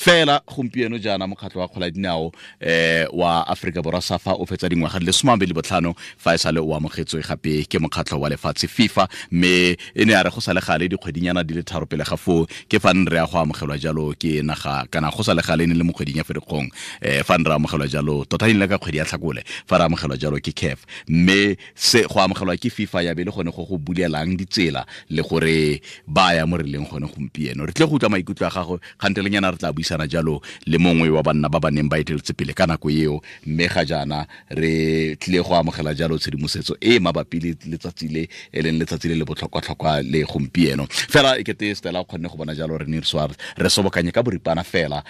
Fela gompieno jaana mokgatlho wa kgola dinao wa Afrika Borwa SAFA o fetsa dingwaga di le 25 fa e sale o amogetswe gape ke mokgatlho wa lefatshe FIFA, mme e ne ya re go sa le gale dikgwedinyana di le 3 pele ga foo ke fa re ya go amogelwa jalo ke naga, kana go sa le gale ne le mo kgweding ya Ferikgong, fa re amogelwa jalo tota e ne le ka kgwedi ya Tlhakole fa re amogelwa jalo ke CAF, mme se go amogelwa ke FIFA ya be le gone go go bulelang ditsela le gore ba ya mo re leng gone gompieno. Re tle go utlwa maikutlo a gago kgantelenyana, re tla buisana jalo le mongwe wa banna ba ba neng ba eteletse pele ka nako eo, mme ga jaana re tlile go amogela jalo tshedimosetso e mabapi le letsatsi le e leng letsatsi le le botlhokwa-tlhokwa le gompieno. Fela e kete Stella o kgonne go bona jalo re ne re sobokanye ka boripana fela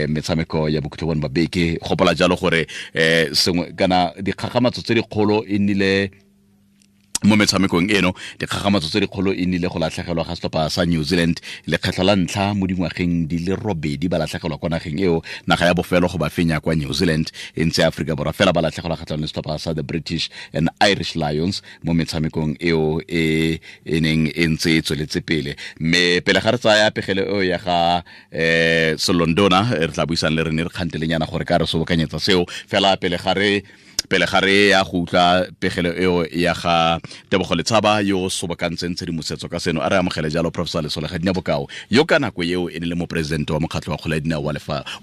metshameko ya bokhutlo bone ba beke. Gopola jalo gore sengwe kana dikgagamatso tse dikgolo e nnile mo metshamekong eno, dikgagamatso tse dikgolo e nnile go latlhegelwa ga setlhopha sa New Zealand lekgetlho la ntlha mo dingwageng di le 8 ba latlhegelwa kwa nageng eo, naga ya bofelo go ba fenya kwa New Zealand e ntse Afrika Borwa, fela ba latlhegelwa kgatlhanong le setlhopha sa the British and Irish Lions mo metshamekong eo e e neng e ntse e tsweletse pele. Mme pele ga re tsaya pegelo eo ya ga Selondona, re tla buisang le rene re kgantelenyana gore ka re sobokanyetsa seo, fela pele ga re ya go utlwa pegelo eo ya ga Tebogo Letshaba yo sobokantseng tshedimosetso ka seno, a re amogele jalo Professor Lesole Gadina Bokao yo ka nako eo e ne le moporesidente wa mokgatlho wa kgwele ya dinao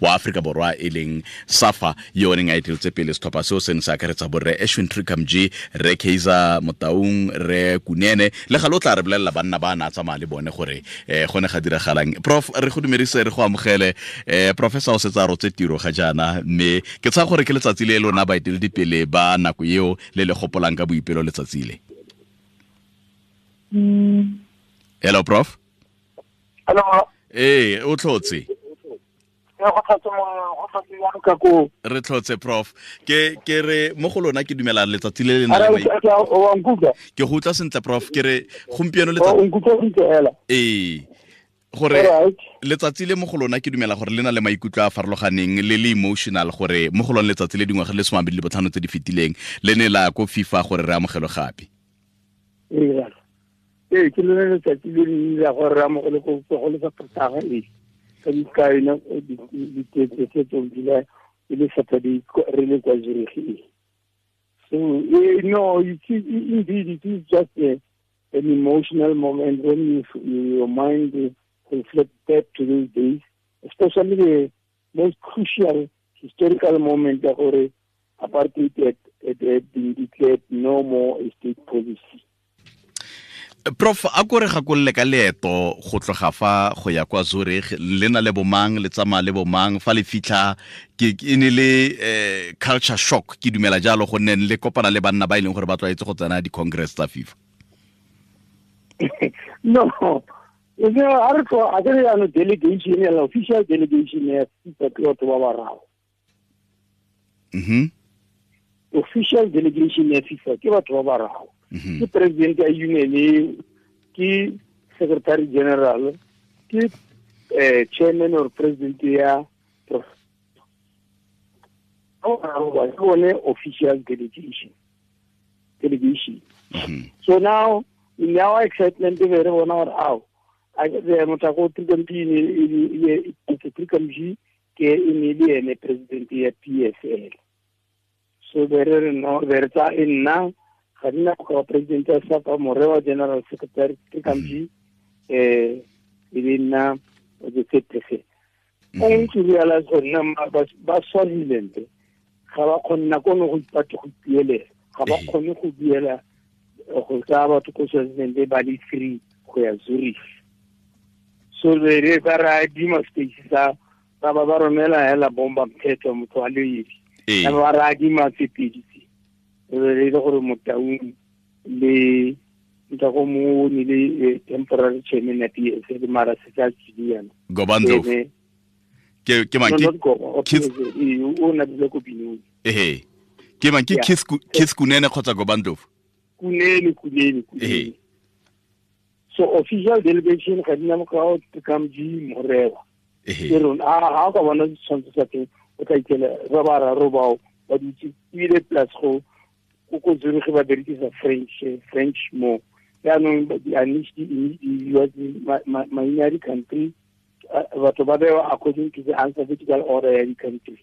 wa Afrika Borwa e leng SAFA, yo neng a eteletse pele setlhopha seo se ne se akaretsa borre Ashwin Trikamji, Re Kaizer Motaung, Re Kunene le ga lo tla re bolelela banna ba na tsamaya le bone gore go ne ga diragalang. Prof, re go dumedise, re go amogele. Professor o setse a rotse tiro ga jaana, mme ke tsaya gore ke letsatsi le lona baeteledipele ba nako eo le le gopolang ka boipelo letsatsi le. Hello Prof. Hello. O tlhotse. Re tlhotse Prof. Ke re mo go lona ke dumela letsatsi le le nang le ke go utlwa sentle Prof, ke re gompieno letsatsi gore letsatsi le mo go lona ke dumela gore le na le maikutlo a farologaneng le le emotional, gore mo go lona letsatsi le dingwaga le 25 tse di fetileng le ne la ko FIFA gore re amogelwe gape. Ee, ke lone letsatsi le le la gore re amogelwe ko go le sa e ka dikaena di tse e le Saturday re le kwa Zurich. So no, indeed it is just an emotional moment when your mind reflect back to those days, especially the most crucial historical moment that apartheid had been declared no more a state policy. Prof, a ko re gakolole ka leeto go tloga fa go ya kwa Zurich, le na le bomang, le tsamaya le bomang, fa le fitlha ke e ne le culture shock ke dumela jalo, gonne le kopana le banna ba e leng gore ba tlwaetse go tsena di-congress tsa FIFA. No, delegation, official delegation ya FIFA ke batho ba bararo. Official delegation ya FIFA ke batho ba bararo. Ke president ya union, ke secretary general, ke chairman or president ya official delegation. So now in our excitement re bona gore ao a ke motho go Trikamji ke e ne le ene president ya PSL. So re no re tsa nna ga nna go president ya SAFA, Morewa general secretary Trikamji, e be nna the third person. Only to realize gore nna ba Swaziland ga ba kgone nako nngwe go ipatla go ipuelela, ga ba kgone go buela go tsaya batho ko Swaziland ba le 3 go ya Zurich. So re ba ra adima space sa ba ba romela hela bomba mthetho motho a le edi, ba ra adima tse pedi tse re le gore Motaung le nta go mo ne le temporary chairman ya PSL mara se tsa tsiliana Gobandlo ke mang ke o na dile ko Binoni. Ke mang ke Keith Kunene kgotsa Gobandlo? Kunene. So official delegation ga dina mokao Trikamji Morewa. Ke rona a ga ka bona ditshwantsho tsa teng o tla ikela ba bararo bao ba dutse ebile plus go ko Zurich ba berekisa French mo. Jaanong maina a di-country Batho ba bewa according to the alphabetical order ya di-country.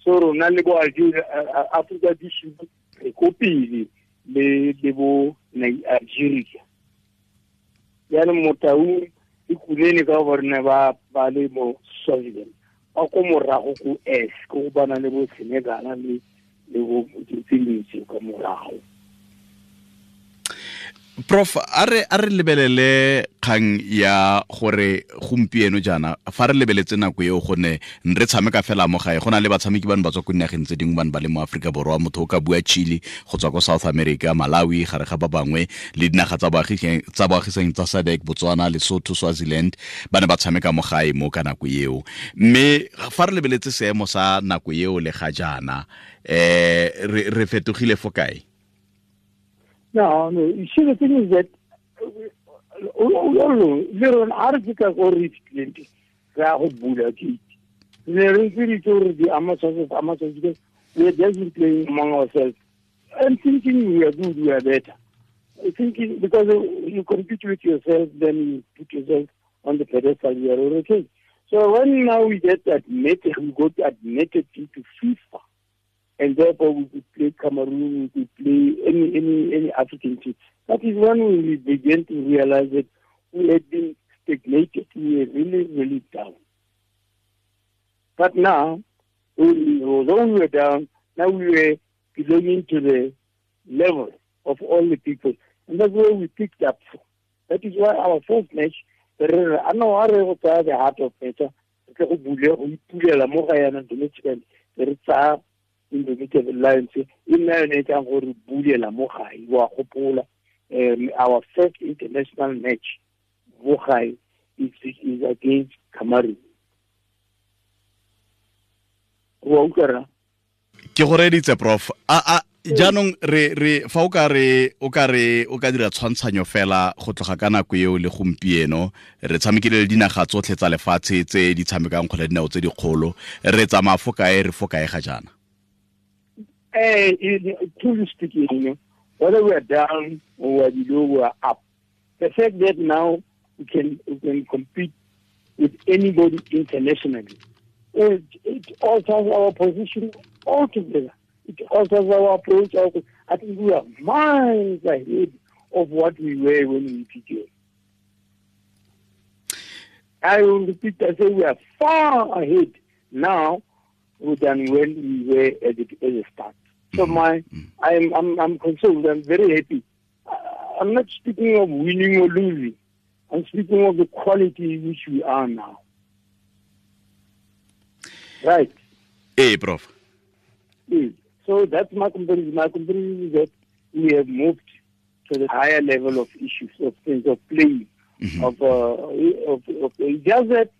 So rona le bo Algeria, Africa du Sud re ko pele le bo Algeria. Jaanong Motaung le Kunene ka gore ne ba le mo Swaziland, ba ko morago ko S, ko go bana le bo Senegal le bo tse dintsi ka morago. Prof, a re lebelele kgang ya gore gompieno jaana fa re lebeletse nako eo gone re tshameka fela mo gae, go na le batshameki bano ba tswa ko dinageng tse dingwe bane ba le mo Aforika Borwa, motho o ka bua Chile go tswa ko South America, Malawi gare ga ba bangwe, le dinaga tsa boagisang tsa SADC, Botswana, Lesotho, Swaziland, ba ne ba tshameka mo gae mo ka nako eo. Mme fa re lebeletse seemo sa nako eo le ga jaana, re fetogile fo kae? No, you see, the thing is that we are just playing among ourselves and thinking we are good, we are better. Thinking because you compete with yourself, then you put yourself on the pedestal, you are okay. So when now we get admitted, we got admitted into FIFA. And therefore we could play Cameroon, we could play any African team. That is when we began to realize that we had been stagnated. We were really, really down. But now, although we were down, now we were belonging to the level of all the people. And that's where we picked up from. That is why our first match, the heart of nature, Indomitable Lions, our first international match is against Cameroon. Ke go reditse, Prof. A jaanong re fa o ka dira tshwantshanyo fela go tloga ka nako eo le gompieno, re tshamekile le dinaga tsotlhe tsa lefatshe tse di tshamekang kgwele dinao tse dikgolo, re tsamaya fo kae, re fo kae ga jaana? Truly speaking, you know, whether we are down or we are below, we are up. The fact that now we can compete with anybody internationally, it alters our position altogether. It alters our approach. I think we are miles ahead of what we were when we began. I will repeat, I say we are far ahead now than when we were at the start. So I'm consoled. I'm very happy. I'm not speaking of winning or losing. I'm speaking of the quality which we are now. Right. Hey, Prof. So that's my comparison. My comparison is that we have moved to the higher level of issues, of things, of playing, of just that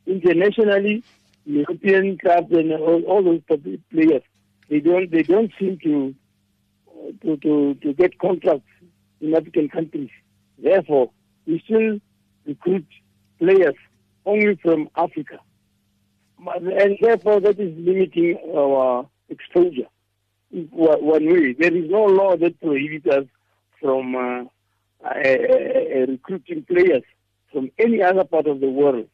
internationally, European clubs and all those players, they don't seem to get contracts in African countries. Therefore, we still recruit players only from Africa, and therefore that is limiting our exposure. One way, there is no law that prohibits us from recruiting players from any other part of the world.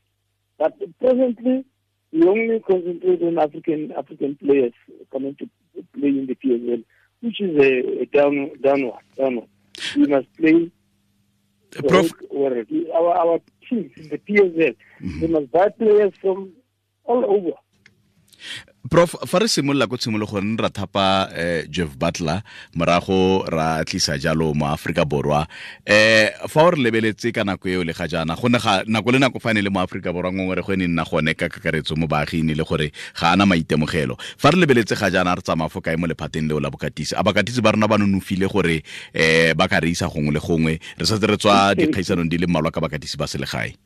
But presently, we only concentrate on African players coming to play in the PSL, which is a downward. We must play Prof. Our teams in the PSL, they must buy players from all over. Prof, fa re simolola ko tshimologong ra thapa Jeff Butler, morago ra tlisa jalo mo Afrika Borwa. Fa o re lebeletse ka nako eo le ga jaana, go ne ga nako le nako fa ne le mo Afrika Borwa ngongore go ne nna gone ka kakaretso mo baaging le gore ga ana maitemogelo. Fa re lebeletse ga jaana re tsamaya fo kae mo lephateng leo la bokatisi? A bakatisi ba rona ba nonofile gore ba ka re isa gongwe le gongwe, re setse re tswa dikgaisanong di le mmalwa ka bakatisi ba selegae?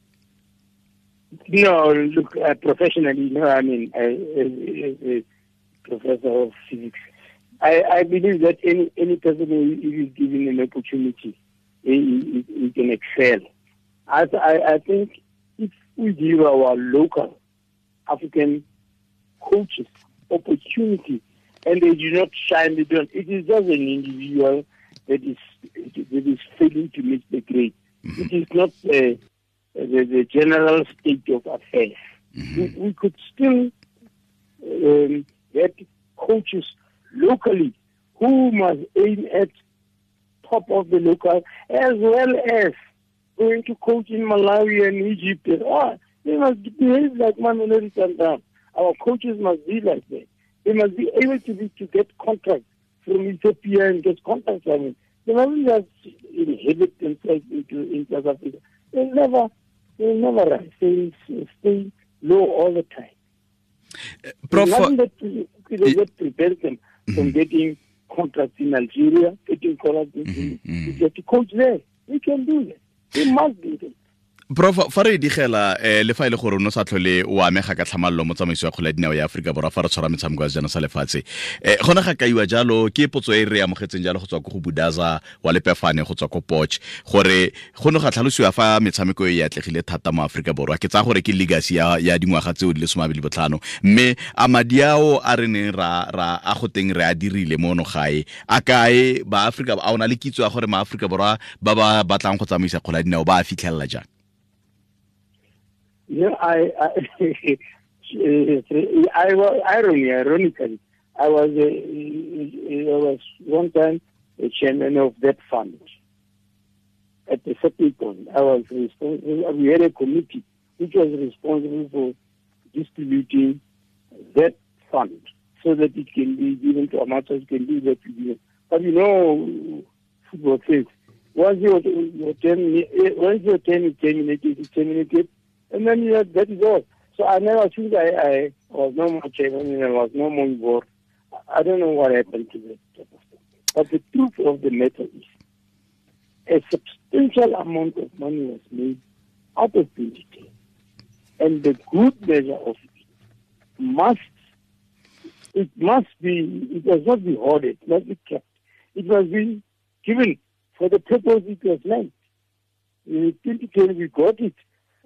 No, look, professionally, no, I mean, as a professor of physics, I believe that any person who is given an opportunity, he can excel. I think if we give our local African coaches opportunity and they do not shine, they don't, it is just an individual that is failing to meet the grade. It is not the general state of affairs. Mm-hmm. We could still get coaches locally who must aim at top of the local, as well as going to coach in Malawi and Egypt. And they must behave like Mamelodi Sundowns. Our coaches must be like that. They must be able to get contracts from Ethiopia and get contracts from it. They mustn't just inhibit themselves in South Africa. They'll never rise. They stay low all the time. Prof, nothing that prevents them from getting contracts in Algeria, getting contracts in Egypt to coach there. We can do that. We must do that. Prof, fa re digela le fa ile gore no sa tlhole o amega ka tlhamallo mo tsamaiso ya kgwele ya dinao ya Afrika Borwa fa re tshwara metshameko ya sejana sa lefatshe, gona ga kaiwa jalo ke potso e re amogetseng jalo go tswa ko go Budaza wa Lepefane go tswa ko Potch, gore go ne ga tlhalosiwa fa metshameko e atlegile thata mo Afrika Borwa. Ke tsaya gore ke legacy ya dingwaga tseo di le 25, mme a madi ao a re neng ra a go teng re a dirile mo no gae a kae ba Afrika? A ona le kitso ya gore ma Afrika Borwa ba ba batlang go tsamaisa kgwele ya dinao ba a fitlhelela jang? Yeah, ironically, I was one time a chairman of that fund. At the certain point, I was responsible. We had a committee which was responsible for distributing that fund so that it can be given to amateurs, can do that. But you know, football says once your term is terminated, it's terminated. And then that is all. So I never think I was no more chairman and I was no more involved. I don't know what happened to that type of thing. But the truth of the matter is, a substantial amount of money was made out of 2010. And the good measure of it must not be hoarded, it must be kept. It must be given for the purpose it was meant. In 2010, we got it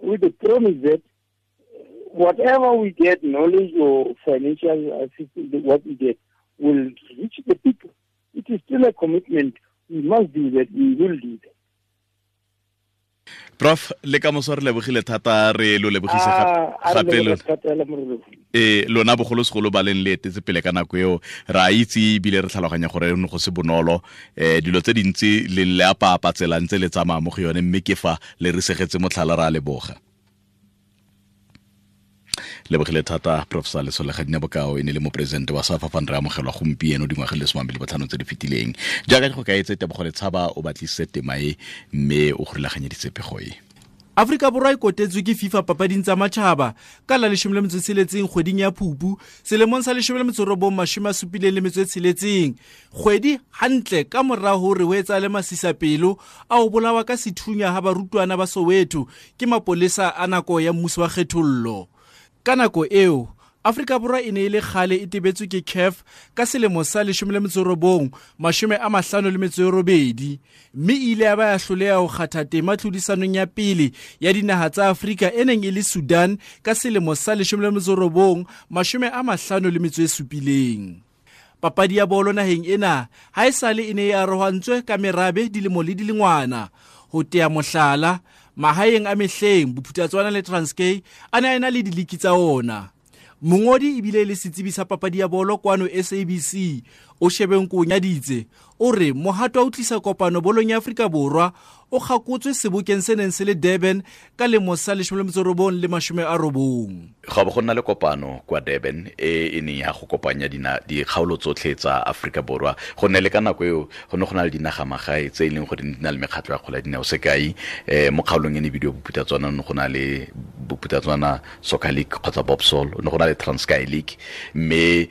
with the promise that whatever we get, knowledge or financial assistance, what we get, will reach the people. It is still a commitment. We must do that. We will do that. Prof, le ka moso re lebogile thata, re lo lebogise gape lona bogolosegolo ba leng le etetse pele ka nako eo. Re a itse ebile re tlhaloganya gore ne go se bonolo, dilo tse dintsi le le apapa tsela ntse le tsamaya mo go yone, mme ke fa le re segetse motlhala, re a leboga. Lebogile thata Professor Lesole Legadinabokao, e ne le moporesidente wa SAFA fa re amogelwa gompieno dingwaga le 25 tse di fetileng. Jaaka go kaetse Tebogo Letshaba o batlisitse tema e mme o gorulaganyeditse pego e. Afrika Borwa e kotetswe ke FIFA papading tsa matjhaba ka la 16 kgweding ya Phupu selemong sa 1976, kgwedi hantle ka mora hore ho etsahale masisapelo a ho bolawa ka sethunya ha barutwana ba Soweto ke mapolesa a nako ya mmuso wa kgethollo. Ka nako eo, Afrika Borwa e ne e le kgale e tebetswe ke CAF ka selemo sa 1958, mme e ile ya ba ya hloleha ho kgatha tema tlhodisanong ya pele ya dinaha tsa Afrika e neng e le Sudan ka selemo sa 1957. Papadi ya bolo naheng ena ha esale e ne e arohantswe ka merabe dilemo le dilengwana. Ho tea mohlala, mahaeng a mehleng Bophuthatswana le Transkei a ne a ena le diliki tsa ona. Mongodi ebile le setsebi sa papadi ya bolo kwano SABC o Shebeng Konyaditse o re mohato wa ho tlisa kopano bolong ya Afrika Borwa o kgakotswe sebokeng se neng se le Durban ka lemo sa 1990. Ga bo go nna le kopano kwa Durban e neng ya go kopanya dikgaolo tsotlhe tsa Afrika Borwa, go nne le ka nako eo go ne go na le dinaga magae tse e leng gore di na le mekgatlho ya kgwele ya dinao. Sekai, mo kgaolong e ne bidiwa Bophuthatswana, ne go na le Bophuthatswana Soccer League kgotsa Bobsol, ne go na le Transkei League, mme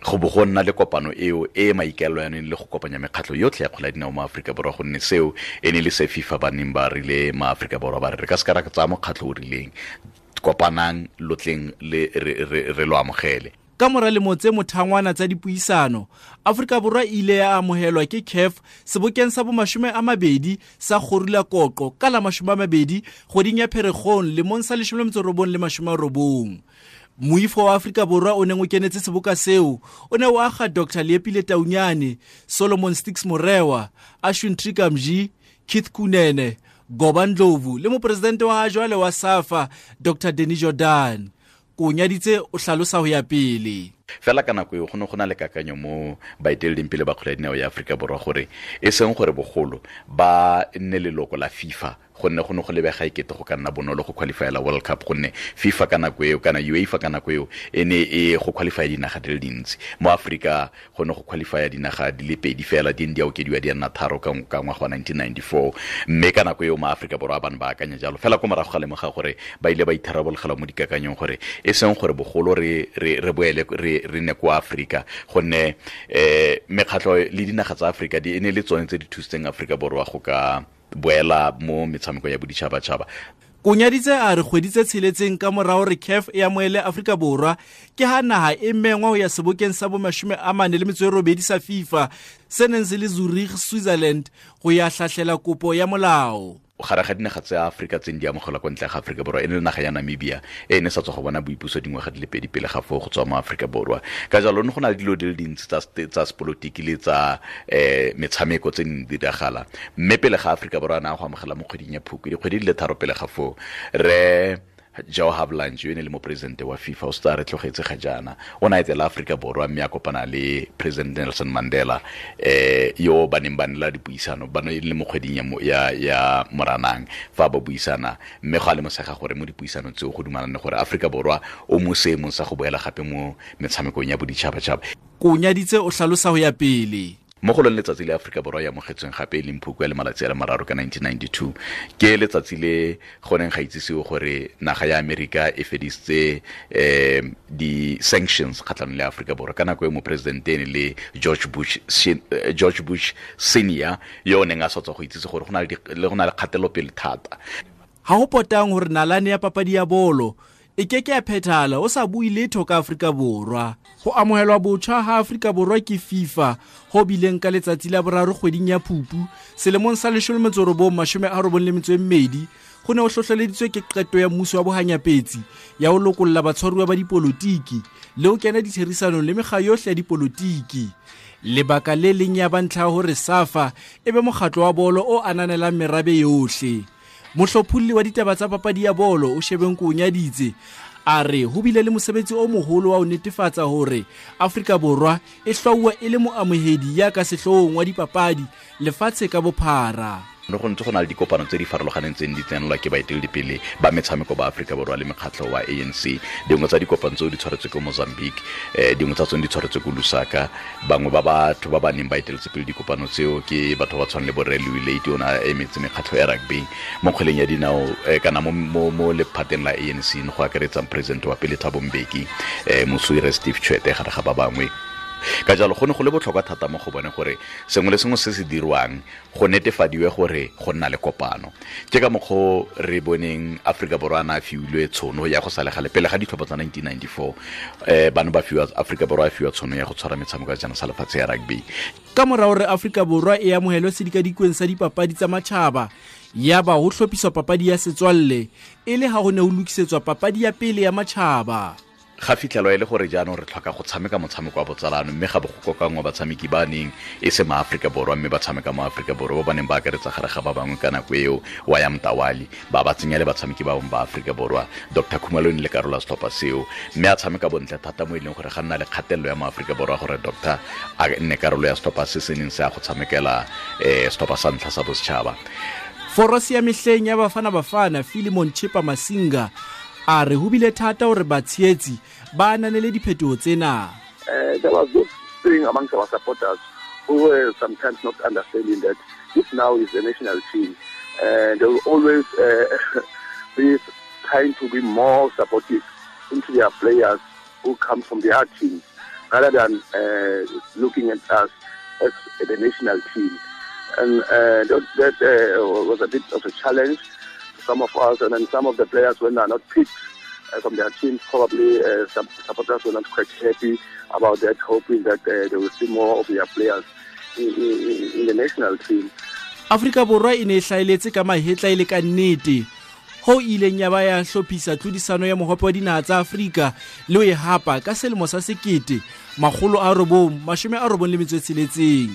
go bo go nna le kopano eo e maikaelelo yaneng le go kopanya mekgatlho yotlhe ya kgwele ya dinao mo Afrika Borwa, gonne seo e ne le se FIFA ba neng ba rile ma Afrika Borwa ba re re ka se ka ra tsaya mokgatlho o rileng, kopanang lotleng le re lo amogele. Ka mora lemo tse mothangwana tsa dipuisano, Afrika Borwa e ile ya amohelwa ke CAF sebokeng sa bo 20 sa Gorula Koqo ka la 20 kgweding ya Pherekgong lemong sa 1990. Moifo wa Afrika Borwa o neng o kenetse seboka seo o ne o aga Dr. Leepile Taunyane, Solomon Stix Morewa, Ashwin Trikamji, Keith Kunene, Goba Ndlovu le mopresidente wa jwale wa SAFA Dr Danny Jordan. Konyaditse o hlalosa ho ya pele. Fela ka nako eo go ne go na le kakanyo mo baeteleding pele ba kgwele ya dinao ya Aforika Borwa gore e seng gore bogolo ba nne leloko la FIFA, gonne go ne go lebega ekete go ka nna bonolo go qualifyela World Cup, gonne FIFA ka nako eo kana UEFA ka nako eo e ne e go qualify dinaga di le dintsi. Mo Aforika go ne go qualify dinaga di le pedi fela, di ne di a okediwa di nna tharo ka ngwaga wa 1994, mme ka nako eo ma Aforika Borwa ba ne ba akanya jalo. Fela ko morago ga lemoga gore ba ile ba itharabologelwa mo dikakanyong gore e seng gore bogolo re boele re ne kwa Aforika, gonne mekgatlho le dinaga tsa Aforika di e ne le tsone tse di thusitseng Aforika Borwa go ka boela mo metshameko ya boditšhabatšhaba. Konyaditse a re kgwedi tse tsheletseng ka morao re CAF e amohele Afrika Borwa ke ha naha e mengwa ho ya sebokeng sa bo 48 sa FIFA se neng se le Zurich, Switzerland go ya hlahlela kopo ya molao. Gare ga dinaga tsa Aforika tse di amogelwa kwa ntle ga Aforika Borwa e ne le naga ya Namibia e ne sa tswa go bona boipuso dingwaga di le pedi pele ga foo go tswa mo Aforika Borwa. Ka jalo ne go na le dilo di le dintsi tsa sepolotiki le tsa metshameko tse di diragala, mme pele ga Aforika Borwa a na go amogela mo kgweding ya Phukwi, dikgwedi di le tharo pele ga foo, re Joe Havelange yo e ne le moporesidente wa FIFA o setse a re tlogetse ga jaana, o ne a etela Aforika Borwa mme a kopana le President Nelson Mandela yo ba neng ba nela dipuisano, ba ne le mo kgweding ya Moranang fa ba buisana, mme go a lemosega gore mo dipuisanong tseo go dumalane gore Aforika Borwa o mo seemong sa go boela gape mo metshamekong ya boditšhabatšhaba. Konyaditse o hlalosa ho ya pele. Mo go lone letsatsi le Aforika Borwa ya amogetsweng gape e leng Phukwi le malatsi a le mararo ka 1992, ke letsatsi le go neng ga itsisiwe gore naga ya Amerika e fedisitse di-sanctions kgatlhanong le Aforika Borwa. Ka nako e moporesidente e ne le George Bush Senior yo o neng a sa tswa go itsise gore go na le kgatelopele thata. Ha ho potang hore nalane ya papadi ya bolo e ke ke ya phethahala o sa bue letho ka Afrika Borwa. Ho amohelwa botjha ha Afrika Borwa ke FIFA ho bileng ka letsatsi la boraro kgweding ya Phupu selemong sa 1992 go ne ho hlohleleditswe ke qeto ya mmuso wa bohanyapetsi ya ho lokolla batshwaruwa ba dipolotiki le ho kena ditherisanong le mekga yohle ya dipolotiki. Lebaka le leng ya ba ntlha hore SAFA e be mokgatlo wa bolo o ananelang merabe yohle. Mohlopholli wa ditaba tsa papadi ya bolo o Shebeng Konyaditse a re ho bile le mosebetsi o moholo wa ho netefatsa hore Afrika Borwa e hlwauwa e le moamohedi ya ka sehloohong wa dipapadi lefatshe ka bophara. No go ntse go na le dikopano tse di farologaneng tse di tsenelwa ke baeteledipele ba metshameko ba Aforika Borwa le mekgatlho wa ANC. Dingwe tsa dikopano tseo di tshwaretswe ko Mozambique, dingwe tsa tsone di tshwaretswe ko Lusaka. Bangwe ba batho ba ba neng ba eteletse pele dikopano tseo ke batho ba tshwana le bo Rre Louis Luyt, o ne a emetse mekgatlho ya rugby mo kgweleng ya dinao, kana mo lephateng la ANC, go akaretsang president wa pele Thabo Mbeki, Moswire Steve Tshwete gare ga ba bangwe. Ka jalo go ne go le botlhokwa thata mo go bone gore sengwe le sengwe se se dirwang go netefadiwe gore go nna le kopano. Ke ka mokgwa re boneng Aforika Borwa a na a fiwilwe tshono ya go sa le gale pele ga ditlhopho tsa 1994, bano ba fiwa Aforika Borwa a fiwa tshono ya go tshwara metshameko ya sejana sa lefatshe ya rugby. Ka mora hore Aforika Borwa e amohelwe sedikadikweng sa dipapadi tsa matjhaba, ya ba ho hlophiswa papadi ya setswalle e le ha ho ne ho lokisetswa papadi ya pele ya matjhaba. Ga fitlhelwa e le gore jaanong re tlhoka go tshameka motshameko wa botsalano, mme ga bo go kokanngwa batshameki ba neng e se ma-Aforika Borwa mme ba tshameka mo Aforika Borwa, ba ba neng ba akaretsa gare ga ba bangwe ka nako eo wa ya Mtawali, ba ba tsenya le batshameki ba bangwe ba Aforika Borwa. Dr Khumalo e ne le karolo ya setlhopha seo, mme a tshameka bontle thata mo e leng gore ga nna le kgatelelo ya mo-Aforika Borwa gore Doctor a nne karolo ya setlhopha se se neng se ya go tshamekela setlhopha sa ntlha sa bosetšhaba. Forosi ya mehleng ya Bafana Bafana Philemon Chipa Masinga a re ho bile thata hore batshehetsi ba ananele diphetoho tsena. There was this thing amongst our supporters who were sometimes not understanding that this now is the national team, and they will always be trying to be more supportive into their players who come from their teams rather than looking at us as the national team. And that was a bit of a challenge. Some of us, and then some of the players when they are not picked from their teams, probably some supporters were not quite happy about that, hoping that they will see more of their players in the national team. Afrika Borwa e ne e hlaeletse ka mahetla e le ka nnete ho ileng ya ba ya hlophisa tlhodisano ya mohope wa dinaha tsa Afrika le ho e hapa ka selemo sa 1996.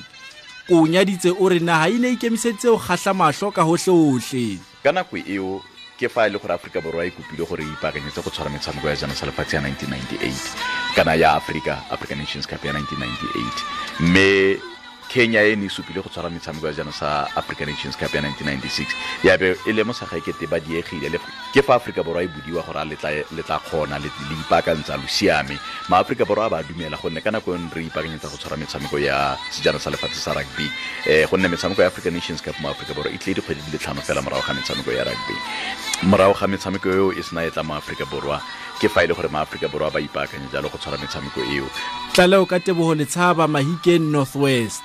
Koonyaditse o re naha e ne ikemiseditse ho kgahla mahlo ka hohlehohle. Ka nako eo ke fa e le gore Aforika Borwa e kopile gore e ipaakanyetse go tshwara metshameko ya jana sa lefatshe ya 1998 kana ya Africa African Nations Cup ya 1998, mme Kenya e ne e supile go tshwara metshameko ya jana sa African Nations Cup ya 1996, ya be e lemosa ga ekete ba diegile. Ke fa Aforika Borwa e bodiwa gore a le tla kgona le ipaakantsa lo siame. Ma Aforika Borwa a ba dumela, gonne ka nako e re ipaakanyetsa go tshwara metshameko ya sejana sa lefatshe sa rugby, gonne metshameko ya African Nations Cup mo Aforika Borwa e tlile dikgwedi di le 5 fela morago ga metshameko ya rugby. Morago ga metshameko eo e sena e tla mo Aforika Borwa, ke fa e le gore ma Aforika Borwa ba ipaakanya jalo go tshwara metshameko eo. Tlaleo ka Teboho Letshaba, Mahikeng, North West.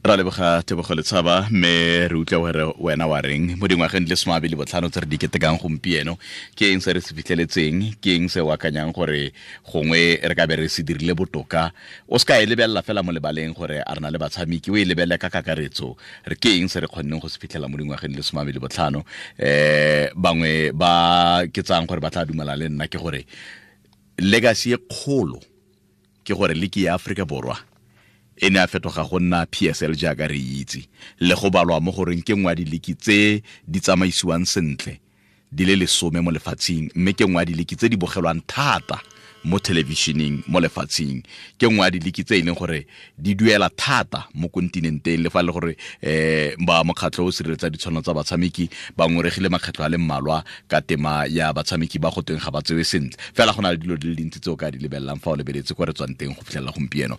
Ra leboga Tebogo Letshaba, mme re utlwa gore wena wa reng mo dingwageng di le 25 tse re di ketekang gompieno. Ke eng se re se fitlheletseng? Ke eng se o akanyang gore gongwe re ka be re se dirile botoka? O se ka e lebelela fela mo lebaleng gore a re na le batshameki, o e lebelele ka kakaretso. Re ke eng se re kgonneng go se fitlhela mo dingwageng di le 25? Bangwe ba ke tsang gore ba tla dumela le nna ke gore legacy e kgolo ke gore liki ya Aforika Borwa e ne a fetoga go nna PSL jaaka re itse, le go balwa mo goreng ke nngwe ya diliki tse di tsamaisiwang sentle di le 10 mo lefatsheng, mme ke nngwe ya diliki tse di bogelwang thata mo thelebišeneng mo lefatsheng, ke nngwe ya diliki tse e leng gore di duela thata mo kontinenteng. Le fa le gore ba mokgatlho o sireletsa ditshwanelo tsa batshameki ba ngoregile makgetlho a le mmalwa ka tema ya batshameki ba go tweng ga ba tsewe sentle, fela go na le dilo di le dintsi tse o ka di lebelelang fa o lebeletse kwa re tswang teng go fitlhelela gompieno.